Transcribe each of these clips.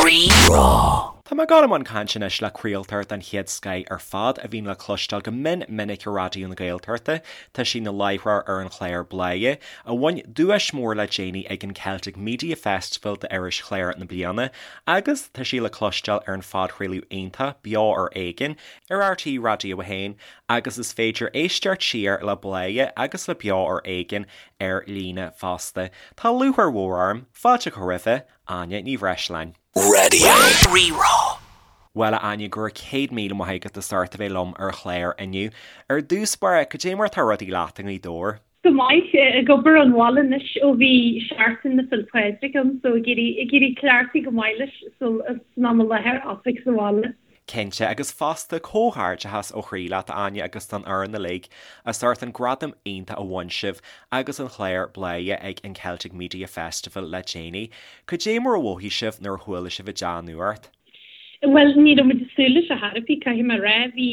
Rí-Rá. Tá mé ag dul i mbun cainte anois le craoltóir den chéad scoith ar fad a bhíonn le cloisteáil go mion minic ar Raidió na Gaeltachta. Tá sí ina láithreoir ar an chlár Bladhaire, a bhain duais mór le déanaí ag an Celtic Media Festival d'Iris Chlár na Bliana, agus tá sí le cloisteáil ar an phodchraoladh iontach Beo ar Éigean ar RTÉ Raidió 1 agus is féidir éisteacht siar le Bladhaire agus le Beo ar Éigean ar líne fosta. Tá lúcháir mhór orm fáilte a chur roimhe, Áine Ní Bhreisleáin. Raidió Rí-Rá. Bhuel, a Áine, go raibh 100,000 maith agat as ucht a bheith liom ar an chlár inniu. Ar dtús báire, cad é mar atá rudaí leat i nGaoth Dobhair? Go maith, ag obair ón bhaile anois ó bhí Seachtain na Féile Pádraig ann so ag iarraidh ag iarraidh cleachtadh go maith leis san am i láthair oifig sa bhaile. Cinnte, agus fosta, comhghairdeachas ó chroí leat, a Áine, agus don fhoireann uilig, as ucht an gradam iontach a bhain sibh agus an chlár Bladhaire ag an Celtic Media Festival le déanaí. Cad é mar a mhothaigh sibh nuair a chuala sibh an dea-nuacht? Bhuel, ní raibh muid ag súil leis ar chor ar bith, caithfidh mé a rá. Bhí,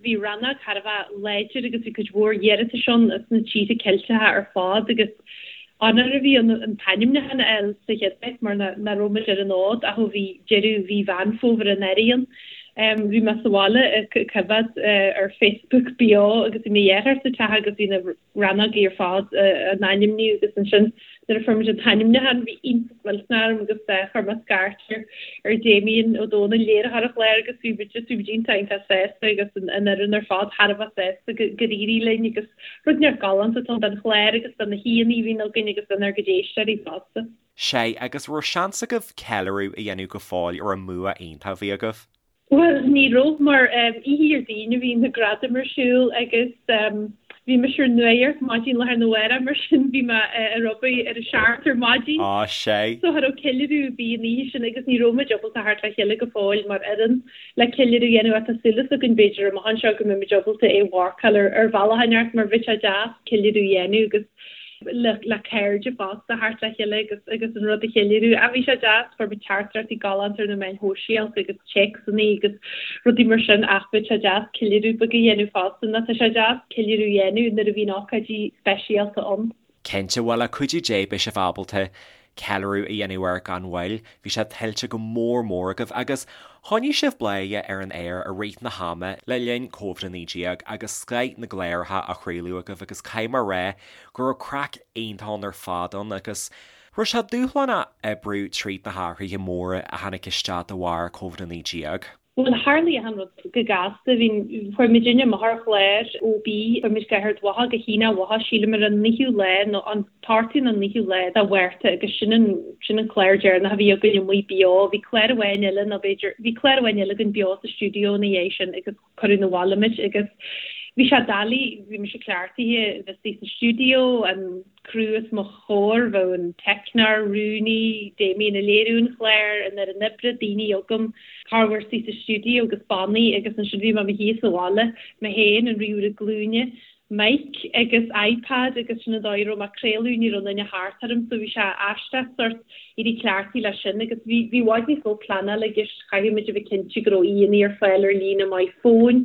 bhí rannóg thar a bheith láidir agus bhí cuid mhór iarratais ann as na tíortha Ceilteacha ar fad agus onóir a bhí ann an t-ainmniúchán a fháil sa chéad áit mar nach raibh muid ar an fhód ach ó bhí deireadh mhí Mheán Fómhair anuraidh ann. Bhí mé sa bhaile ag coimhéad ar Facebook beo agus bhí mo dheartháir sa teach agus bhí na rannógaí ar fad á n-ainmniú agus ansin nuair a fuair muid an t-ainmniúchán bhí iontas millteanach orm agus chuir mé scairt ar ar Damien Ó Dónaill, léiritheoir an chláir agus bhí muid just bhí muid iontach iontach sásta agus an fhoireann ar fad thar a bheith sásta go gur éirigh linn agus Rud inteacht galánta atá ann don chlár agus do na haíonna a bhíonn againn agus donár gcuid éisteoirí fosta. Sea, agus raibh seans agaibh ceiliúradh a dhéanamh go fóill ar an mbua iontach a bhí agaibh? Bhuel, ní raibh, mar oíche Dhéardaoin a bhí na gradaim ar siúl agus bhí mise ar nuacht maidin lá arna mhárach, mar sin bhí mé ar obair ar a seacht ar maidin. Á, sea. So cha raibh ceiliúradh ar bith an oíche sin agus ní raibh muid ábalta theacht le chéile go fóill mar fhoireann. le ceiliúradh a dhéanamh ach tá súil againn b'fhéidir amach anseo go mbeidh muid ábalta é a mharcáil ar ar bhealach inteacht mar bheadh sé deas ceiliúradh a dhéanamh agus le le cairde fosta theacht le chéile agus agus an rud a cheiliúradh. Ach bhí sé deas, fuair muid teachtaireachtaí galánta ar na meáin shóisialta agus téacsanna agus rudaí mar sin ach bheadh sé deas ceiliúradh beag a dhéanamh fosta nó tá sé deas ceiliúradh a dhéanamh nuair a bhíonn ócáidí speisialta ann. Cinnte, bhuel le cuidiú Dé beidh sibh ábalta ceiliúradh a dhéanamh air gan mhoill. Bhí sé tuillte go mór mór agaibh agus choinnigh sibh Bladhaire ar an aer i rith na hama le linn Covid-19 agus scoith na gcláracha á chraoladh agaibh agus caithfidh mé a rá go raibh craic iontach ann ar fad ann agus raibh sé dúshlánach oibriú tríd na hathruithe móra a tháinig isteach de bharr Covid-19. Bhuel, tharlaigh achan rud go gasta. Bhí, chuaigh muidinne amach ar chlár OB, chuaigh muid go hArd Mhacha, go hiontach mhaith, sílim ar an naoú lá nó an t-ochtú nó an naoú lá de Mhárta agus sin an, sin an clár deireanach a bhí againn amuigh beo. Bhí clár amháin eile nó b'fhéidir, bhí clár amháin eile againn beo sa stiúideo ina dhiaidh sin agus cuireadh 'na bhaile muid agus bhí sé doiligh, bhí mise cleachtaithe bheith istigh sa stiúideo, an, criú os mo chomhair, bheadh an teicneoir, rúnaí, Damien ag léiriú an chláir, an fhoireann oibre, daoine agam, corruair istigh sa stiúideo agus bannaí agus ansin bhí mé i mo shuí sa bhaile, mé féin, an ríomhaire glúine, mic agus iPad agus sin an dóigh a raibh mé ag craoladh, ní raibh aon duine thart orm so bhí sé aisteach sórt éirí cleachtaithe leis sin agus bhí bhí i bhfad níos mó pleanála i gceist, chaithfeadh muid a bheith cinnte go raibh aíonna ar fáil ar líne maith fóin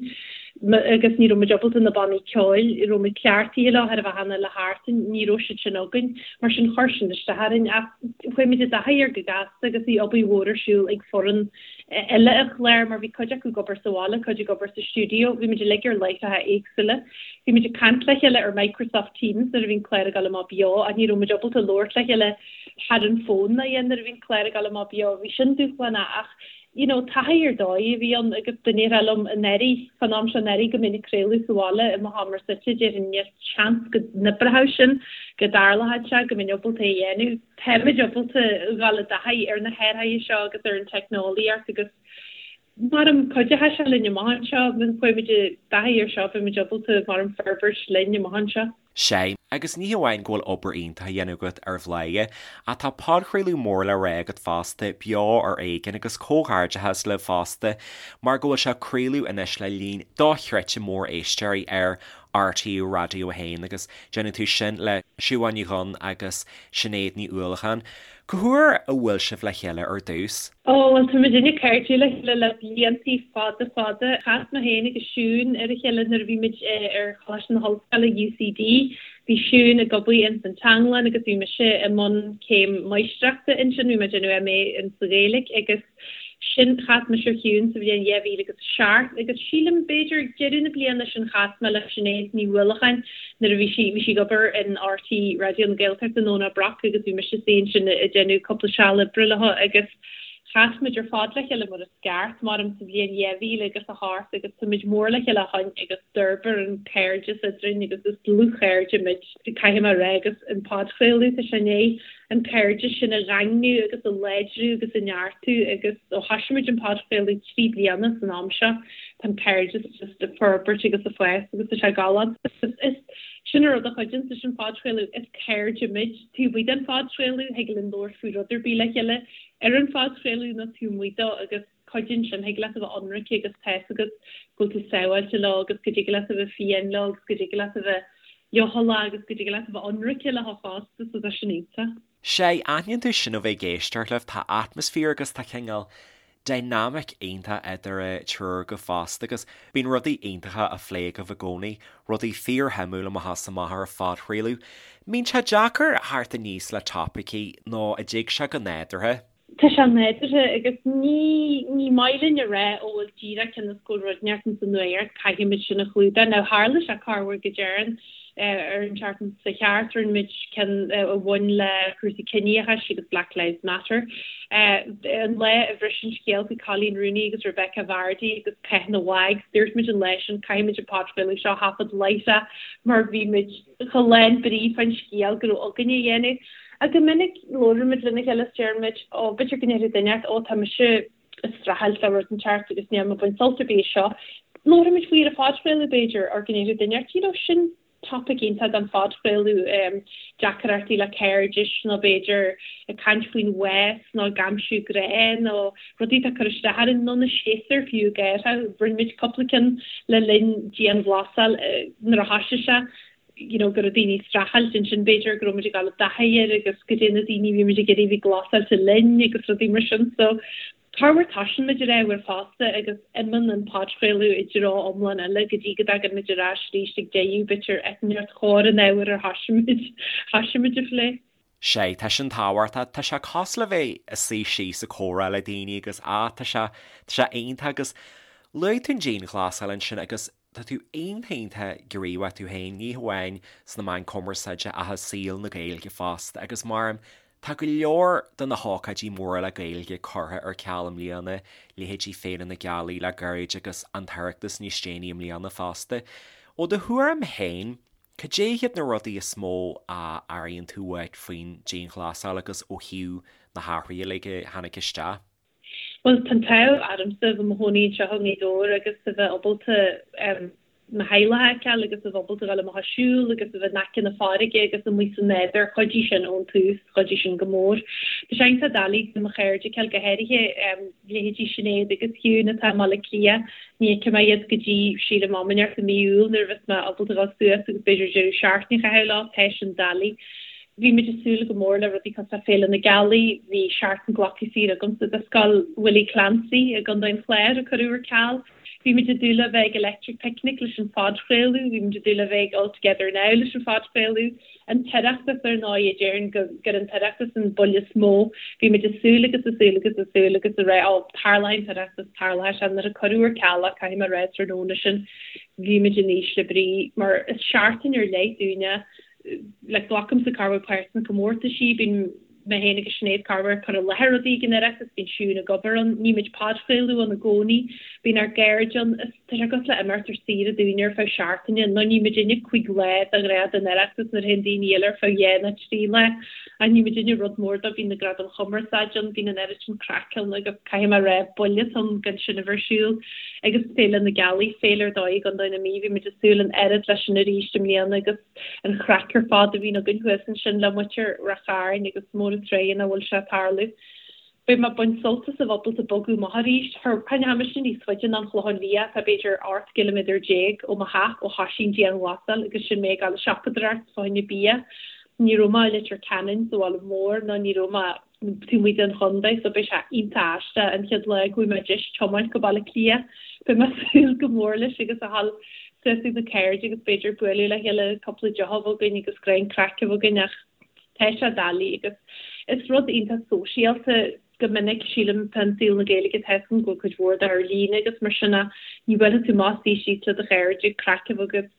agus ní raibh muid ábalta na bannaí ceoil a raibh muid cleachtaithe leo thar a bheith cheana le thart, ní raibh siad sin againn mar sin chuir sin isteach orainn ach chuaigh muid i dtaithí air go gasta agus bhí obair mhór ar siúl ag foireann eile an chláir mar bhí cuid acu ag obair sa bhaile, cuid ag obair sa stiúideo, bhí muid uilig ar láithreacha éagsúla. Bhí muid ag caint le chéile ar Microsoft Teams nuair a bhí an clár ag dul amach beo ach ní raibh muid ábalta labhairt le chéile thar an bhfón ná a dhath nuair a bhí an clár ag dul amach beo. Bhí sin dúshlánach ach you know taithí ar dóigh a bhí ann agus dá ndéarfá liom anuraidh, fán am seo anuraidh go mbeinn ag craoladh sa bhaile i mo sheomra suite, déarfainn níl seans go n-oibreodh sin, go dtarlódh sé, go mbeinn ábalta é a dhéanamh. Táimid ábalta dhul i dtaithí ar na hathruithe seo agus ar an teicneolaíocht agus Maram cuideoidh sé linn amach anseo, má chuaigh muid i dtaithí ar seo beidh muid ábalta maram forbairt linn amach anseo. Sea, agus ní hamháin go bhfuil obair iontach á dhéanamh agat ar Bhladhaire, ach tá podchraoladh mór le rá agat fosta, Beo ar Éigean, agus comhghairdeachas libh fosta mar go bhfuil sé ag craoladh anois le líon dochreidte mór éisteoirí ar RTÉ Raidió 1 agus déanann tú sin le Siobhán Ní Dhuinn agus Sinéad Ní Uallacháin. Cá huair a bhuail sibh le chéile ar dtús? Ó, bhuel, tá muidinne cairdiúil le chéile le bliantaí fada fada. Chas mé féin agus Siún ar a chéile nuair a bhí muid ar Choláiste na hOllscoile, UCD. Bhí Siún ag obair ins an Teanglann agus bhí mise i mbun céim máistreachta ansin, bhí mé ag déanamh MA in sa Ghaeilge agus sin, chas mise ar Shiún sa bhliain 2007 agus sílim b'fhéidir ag deireadh na bliana sin chas mé le Sinéad Ní Uallacháin nuair a bhí sí, bhí sí ag obair in RTÉ Raidió na Gaeltachta i nDomhnach Broc agus bhí mise istigh ansin ag déanamh cúpla seal oibre leo agus chas muid ar fad le chéile mar is ceart, maram sa bhliain 2008 agus tá muid mór le chéile ó shoin agus d'fhorbair an cairdeas eadrainn agus is dlúthchairde muid, caithfidh mé a rá agus an podchraoladh, tá sé i ndiaidh an cairdeas sin a dhaingniú agus a láidriú agus a neartú agus ó thoisigh muid an podchraoladh 3 bliana san am seo, tá an cairdeas just ag forbairt agus ag fás agus tá sé galánta. Is sin an rud a chuidíonns leis an phodchraoladh, is cairde muid taobh amuigh den phodchraoladh, thig linn labhairt faoi rud ar bith le chéile ar an phodchraoladh nó taobh amuigh dó agus cuidíonn sin, thig leat a bheith ionraic agus tá fhios agat go bhfuil tú sábháilte leo agus go dtig leat a bheith fiáin leo agus go dtig leat a bheith leochaileach agus go dtig leat a bheith ionraic leo fosta so tá sin iontach. Sea, aithníonn tú sin ó bheith ag éisteacht libh, tá atmaisféar agus tá cineál dynamic iontach idir an triúr agaibh fosta agus bíonn rudaí iontacha á phlé agaibh i gcónaí, rudaí fíorshuimiúil amach is amach ar an phodchraoladh. Mbíonn sé deacair theacht aníos le topaicí nó an dtig sé go nádúrtha? Tá sé nádúrtha agus ní ní maith linn a rá ó bhuel díreach cionn is go bhfuil rud inteacht ins an nuacht caithfimid sin a chlúdach. Now tharla sé corruair go dtéarn ar an tseachtain seo thart rinne muid ceann a bhain le cúrsaí ciníochais agus Black Lives Matter. An lá a bhris an scéal faoi Coleen Rooney agus Rebekah Vardy agus Cath na WAGs dúirt muid an lá sin caithfimid an podchraoladh seo a thaifead láithreach mar bhí muid chomh lán brí fán scéal go raibh againn a dhéanamh. Ach go minic labhraímid lena chéile is deirimid ó b'fhéidir go ndéarfaidh duine inteacht ó tá mise ag streachailt le rud inteacht agus níl mé ag baint sult ar bith as seo. Labhraímid faoi ar an phodchraoladh b'fhéidir or go ndéarfaidh duine inteacht you know sin topaic iontach don phodchraoladh, deacrachtaí le cairdis nó b'fhéidir ag caint faoin bhás nó ag aimsiú grá nó rudaí atá ag cur isteach orainn nó na séasúir fiú ag athrú. Rinne muid cúpla ceann le linn dianghlasáil nuair a thoisigh sé you know go raibh daoine ag streachailt ansin b'fhéidir go raibh muid ag dul i dtaithí air agus goidé na daoine a bhí muid ag iarraidh a bheith glasáilte linn agus rudaí mar sin so corruair toisíonn muid ar ábhar fosta agus imíonn an podchraoladh i dtreo iomlán eile go dtí go dtagann muid ar ais arís ag deireadh b'fhéidir eitneacht chóir an ábhair ar thoisigh muid thoisigh muid a phlé. Sea, tá sin tábhachtach. Tá sé cosúil le bheith ag suí síos ag comhrá le daoine agus ah tá sé, tá sé iontach agus luaigh tú an dianghlasáil ansin agus tá tú iontach iontach gníomhach tú féin, ní hamháin sna meáin cumarsáide ach i saol na Gaeilge fosta agus mar tá go leor de na hócáidí móra le Gaeilge curtha ar ceal i mbliana, leithéidí Féile na Gealaí le gairid agus an tOireachtas níos déanaí i mbliana fosta. Ó do thuairim féin, Cad é hiad na rudaí is mó a airíonn tú uait faoin dianghlasáil agus ó thaobh na hathruithe uilig a tháinig isteach? Bhuel, tá an t-ádh ormsa a bheith i mo chónaí anseo i nGaoth Dobhair agus a bheith ábalta mo theaghlach a fheiceáil agus a bheith ábalta dul amach ag siúl agus a bheith in aice na farraige agus amuigh sa nádúr. Chuidigh sin ón tús, chuidigh sin go mór. Tá sé iontach doiligh do mo chairde a fheiceáil, go háirithe leithéidí Sinéad agus Shiún atá i mBaile Átha Cliath. Ní fheicfidh mé iad go dtí, sílim, am inteacht i mí Iúil nuair a bheas mé ábalta dhul suas agus b'fhéidir deireadh seachtaine a chaitheamh leo, tá sin doiligh. Bhí muid ag súil go mór le rudaí cosúil le Féile na Gealaí, bhí seachtain glactha saor agamsa do Scoil Willie Clancy i gContae an Chláir a cuireadh ar ceal. Bhí muid ag dúil le bheith ag Electric Picnic leis an phodchraoladh, bhí muid ag dúil le bheith ag All Together Now leis an phodchraoladh. An tOireachtas, ar ndóigh, déarfainn gur an tOireachtas an buille is mó. Bhí muid ag súil agus ag súil agus ag súil agus ag rá, ó, tarlóidh an tOireachtas, tarlóidh sé. Nuair a cuireadh ar ceal é, caithfidh mé a rá, tráthnóna sin, bhí muid in ísle brí, mar is seachtain ar leith dúinne, like, glacaimse corruair páirt sna comórtaisí, bíonn mé féin agus Sinéad corruair ag cur i láthair rudaí ag an Oireachtas, bíonn Siún ag obair ann, nímid podchraoladh ann i gcónaí, bíonn ár gcairde ann, is tá sé cosúil le imeacht ar saoire dúinne ar feadh seachtaine, nó ní muidinne 5 lá de ghnáth don Oireachtas nuair a théann daoine eile ar feadh dhá nó trí lá, ach ní muidinne rud mór dó, bíonn na Gradaim Chumarsáide ann, bíonn an oiread sin craic ann agus caithfidh mé a rá, buille atá ann gan sin a bheith ar siúl. Agus Féile na Gealaí, féile ar dóigh i gContae na Mí, bhí muid ag súil an oiread leis sin arís i mbliana agus. an chraic ar fad a bhíonn againn thuas ansin le muintir Ráth Chairn agus mór an truaighe nach bhfuil sé ag tarlú. Beidh mé ag baint sult as a bheith ábalta bogadh amach arís. Tháinig mise níos faide ná an Chlochán Liath, tá b'fhéidir 18 gciliméadar ó mo theach ó thoisigh an dianghlasáil agus sin mé ag dul ag siopadóireacht fá choinne bia. Ní raibh mé i Leitir Ceanainn sa bhaile mór ná ní raibh mé taobh amuigh den chontae so beidh sé iontach aisteach an chéad lá go bhfuil mé just tiomáint go Baile Átha Cliath. Beidh mé ag súil go mór leis agus a dhul. suas ag na cairde agus b'fhéidir bualadh le chéile cúpla deoch a bheith againn agus greim craic a bheith againn ach tá sé doiligh agus is rud iontach sóisialta go minic sílim fán saol na Gaeilge tá 'fhios agam go bhfuil cuid mhór de ar líne agus mar sin ach ní bhuailfidh tú amach suí síos le do chairde craic a bheith agat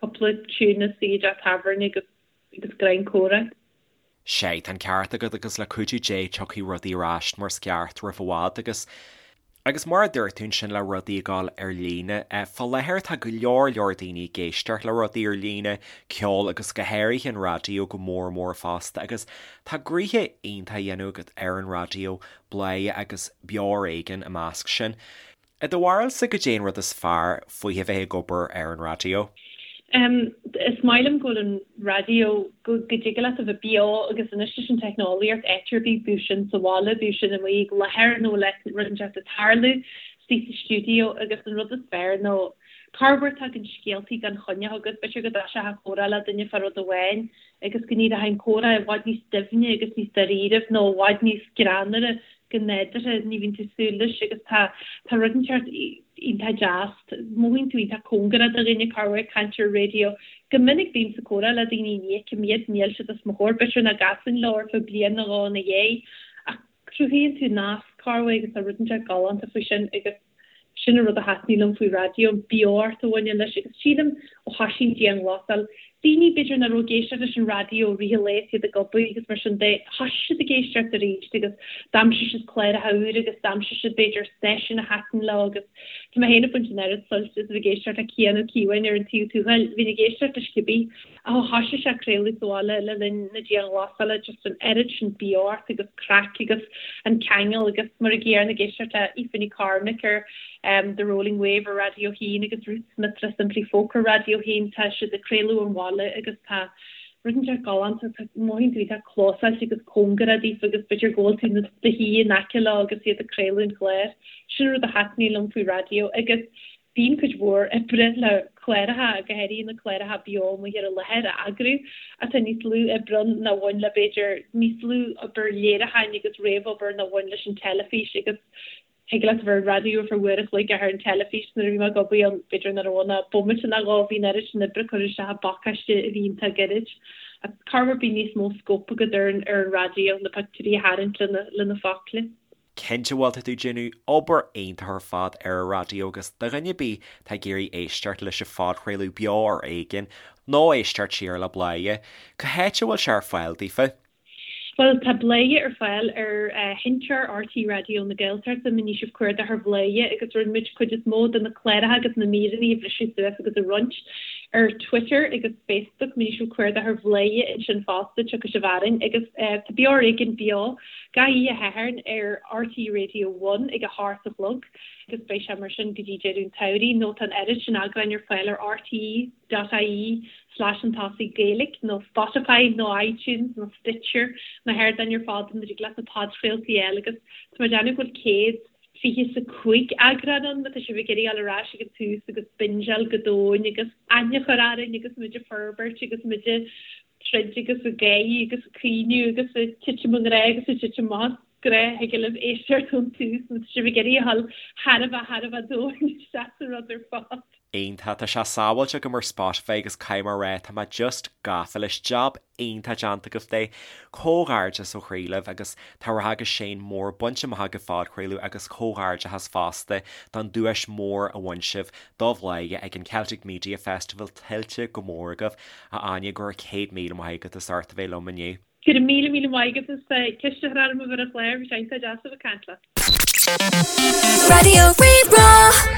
cúpla tiún is suí i dteach tábhairne agus agus greim comhrá. Sea, tá an ceart agat agus le cuidiú Dé tiocfaidh rudaí ar ais mar is ceart roimh i bhfad agus agus mar a dúirt tú ansin le rudaí ag dul ar líne, fá láthair tá go leor leor daoine ag éisteacht le rudaí ar líne, ceol agus go háirithe an raidió go mór mór fosta agus tá gnoithe iontach á dhéanamh agat ar an raidió, Bladhaire agus Beo Ar Éigean i measc sin. I do bharúilsa, goidé an rud is fearr faoi a bheith ag obair ar an raidió? Is maith liom go bhfuil an raidió, go dtig leat a bheith beo agus anois leis an teicneolaíocht áit ar bith, bíodh sin sa bhaile, bíodh sin amuigh ag láthair nó le rud inteacht ag tarlú istigh sa stiúideo agus an rud is fearr nó corruair tagann scéaltaí gan choinne chugat, b'fhéidir go dtoiseofá comhrá le duine fá rud amháin agus go n-éireoidh an comhrá i bhfad níos doimhne agus níos dáiríribh nó i bhfad níos greannmhaire go nádúrtha, ní bhíonn tú ag súil leis agus tá tá rud inteacht iontach deas, mothaíonn tú iontach cóngarach do dhuine corruair ag caint ar an raidió. Go minic bím sa comhrá le daoine ní fheicim iad, níl siad os mo chomhair, b'fhéidir nach gcasfainn leo ar feadh bliain nó dhó ina dhiaidh ach cruthaíonn tú nasc corruair agus tá rud inteacht galánta faoi sin agus Sin an rud a thaitníonn liom faoi raidió, an beocht a bhaineann leis agus sílim ó thoisigh an dianghlasáil, daoine b'fhéidir nach raibh ag éisteacht leis an raidió i rith an lae is iad ag obair agus mar sin de, thoisigh siad ag éisteacht arís agus d'aimsigh siad cláracha úra agus d'aimsigh siad b'fhéidir stáisiún a thaitin leo agus tá mé féin ag baint an oiread suilt as a bheith ag éisteacht le Cian Ó Cíobháin ar an Taobh Tuathail, bhínn ag éisteacht leis cibé Ach ó thoisigh sé ag craoladh sa bhaile le linn na dianghlasála, just an oiread sin beocht agus craic agus an ceangal agus mar an gcéanna ag éisteacht le Aoife Ní Chormaic ar The Rolling Wave ar Raidió 1 agus Ruth Smith le Simply Folk ar Raidió 1, tá siad ag craoladh ón bhaile agus tá rud inteacht galánta, tá mothaíonn tú iontach clósáilte agus cóngarach daofa agus b'fhéidir go bhfuil tú i do shuí in aice leo agus iad ag craoladh an chláir. Sin an rud a thaitníonn liom faoi raidió agus Bíonn cuid mhór oibre le cláracha, go háirithe na cláracha beo amuigh ar an láthair, a eagrú, ach tá níos lú oibre ann ná bhain le, b'fhéidir, níos lú obair léiriúcháin agus réamhobair ná bhain leis an teilifís agus thig leat a bheith ar an raidió ar feadh uair a chloig ach ar an teilifís nuair a bhí mé ag obair ann, b'fhéidir nach raibh ann ach bomaite nó dhó, bhí an oiread sin oibre curtha isteach i bpacáiste a bhí iontach gairid. Ach corruair bíonn níos mó scóip agat ar an raidió, na pictiúirí a tharraingt le na focla. Cinnte bhuel tá tú ag déanamh obair iontach ar fad ar an raidió agus do dhuine ar bith atá ag iarraidh éisteacht leis an phodchraoladh Beo Ar Éigean nó éisteacht siar le Bladhaire, cá háit a bhfuil sé ar fáil daofa? Bhuel tá Bladhaire ar fáil ar sheinnteoir RTÉ Raidió na Gaeltachta má ní sibh cuardach ar Bhladhaire agus rinne muid cuid is mó de na cláracha agus na míreanna a bhriseadh suas agus a roinnt ar Twitter agus Facebook má ní sibh cuardach ar Bhladhaire ansin fosta tiocfaidh sibh orainn agus tá Beo Ar Éigean beo Gach oíche Shathairn ar RTÉ Radio One ag a hocht a chlog agus beidh sé mar sin go dtí deireadh an tsamhraidh nó tá an oiread sin eagráin ar fáil ar rte dot ie slash chun tosaigh Gaeilge nó Spotify nó iTunes nó Stitcher na hardáin ar fad ina dtig leat na podchraoltaí a fháil agus tá mé ag déanamh go bhfuil 125 eagrán ann má tá sibh ag iarraidh dul ar ais ag an tús agus bingeáil go domhain agus aithne a chur orainn agus muid ag forbairt agus muid ag troid agus ag gáirí agus ag caoineadh agus ag titim i ngrá agus ag titim as grá thig libh éisteacht ón tús má tá sibh ag iarraidh a dhul thar a bheith thar a bheith domhain isteach sa rud ar fad. Iontach, tá sé sábháilte agam ar Spotify agus caithfidh mé a rá, tá mé just gafa leis, jab iontach déanta agaibh de. Comhghairdeas ó chroí libh agus tá rath agus séan mór bainte amach agaibh phodchraoladh agus comhghairdeachas fosta don duais mór a bhain sibh do Bhladhaire ag an Celtic Media Festival, tuillte go mór agaibh. A Áine, go raibh 100,000 maith agat as ucht a bheith liom inniu. Go raibh míle míle maith agat as ceist a chur orm a bheith ar an chlár, bhí sé iontach deas a bheith ag caint leat. Raidió Rí-Rá.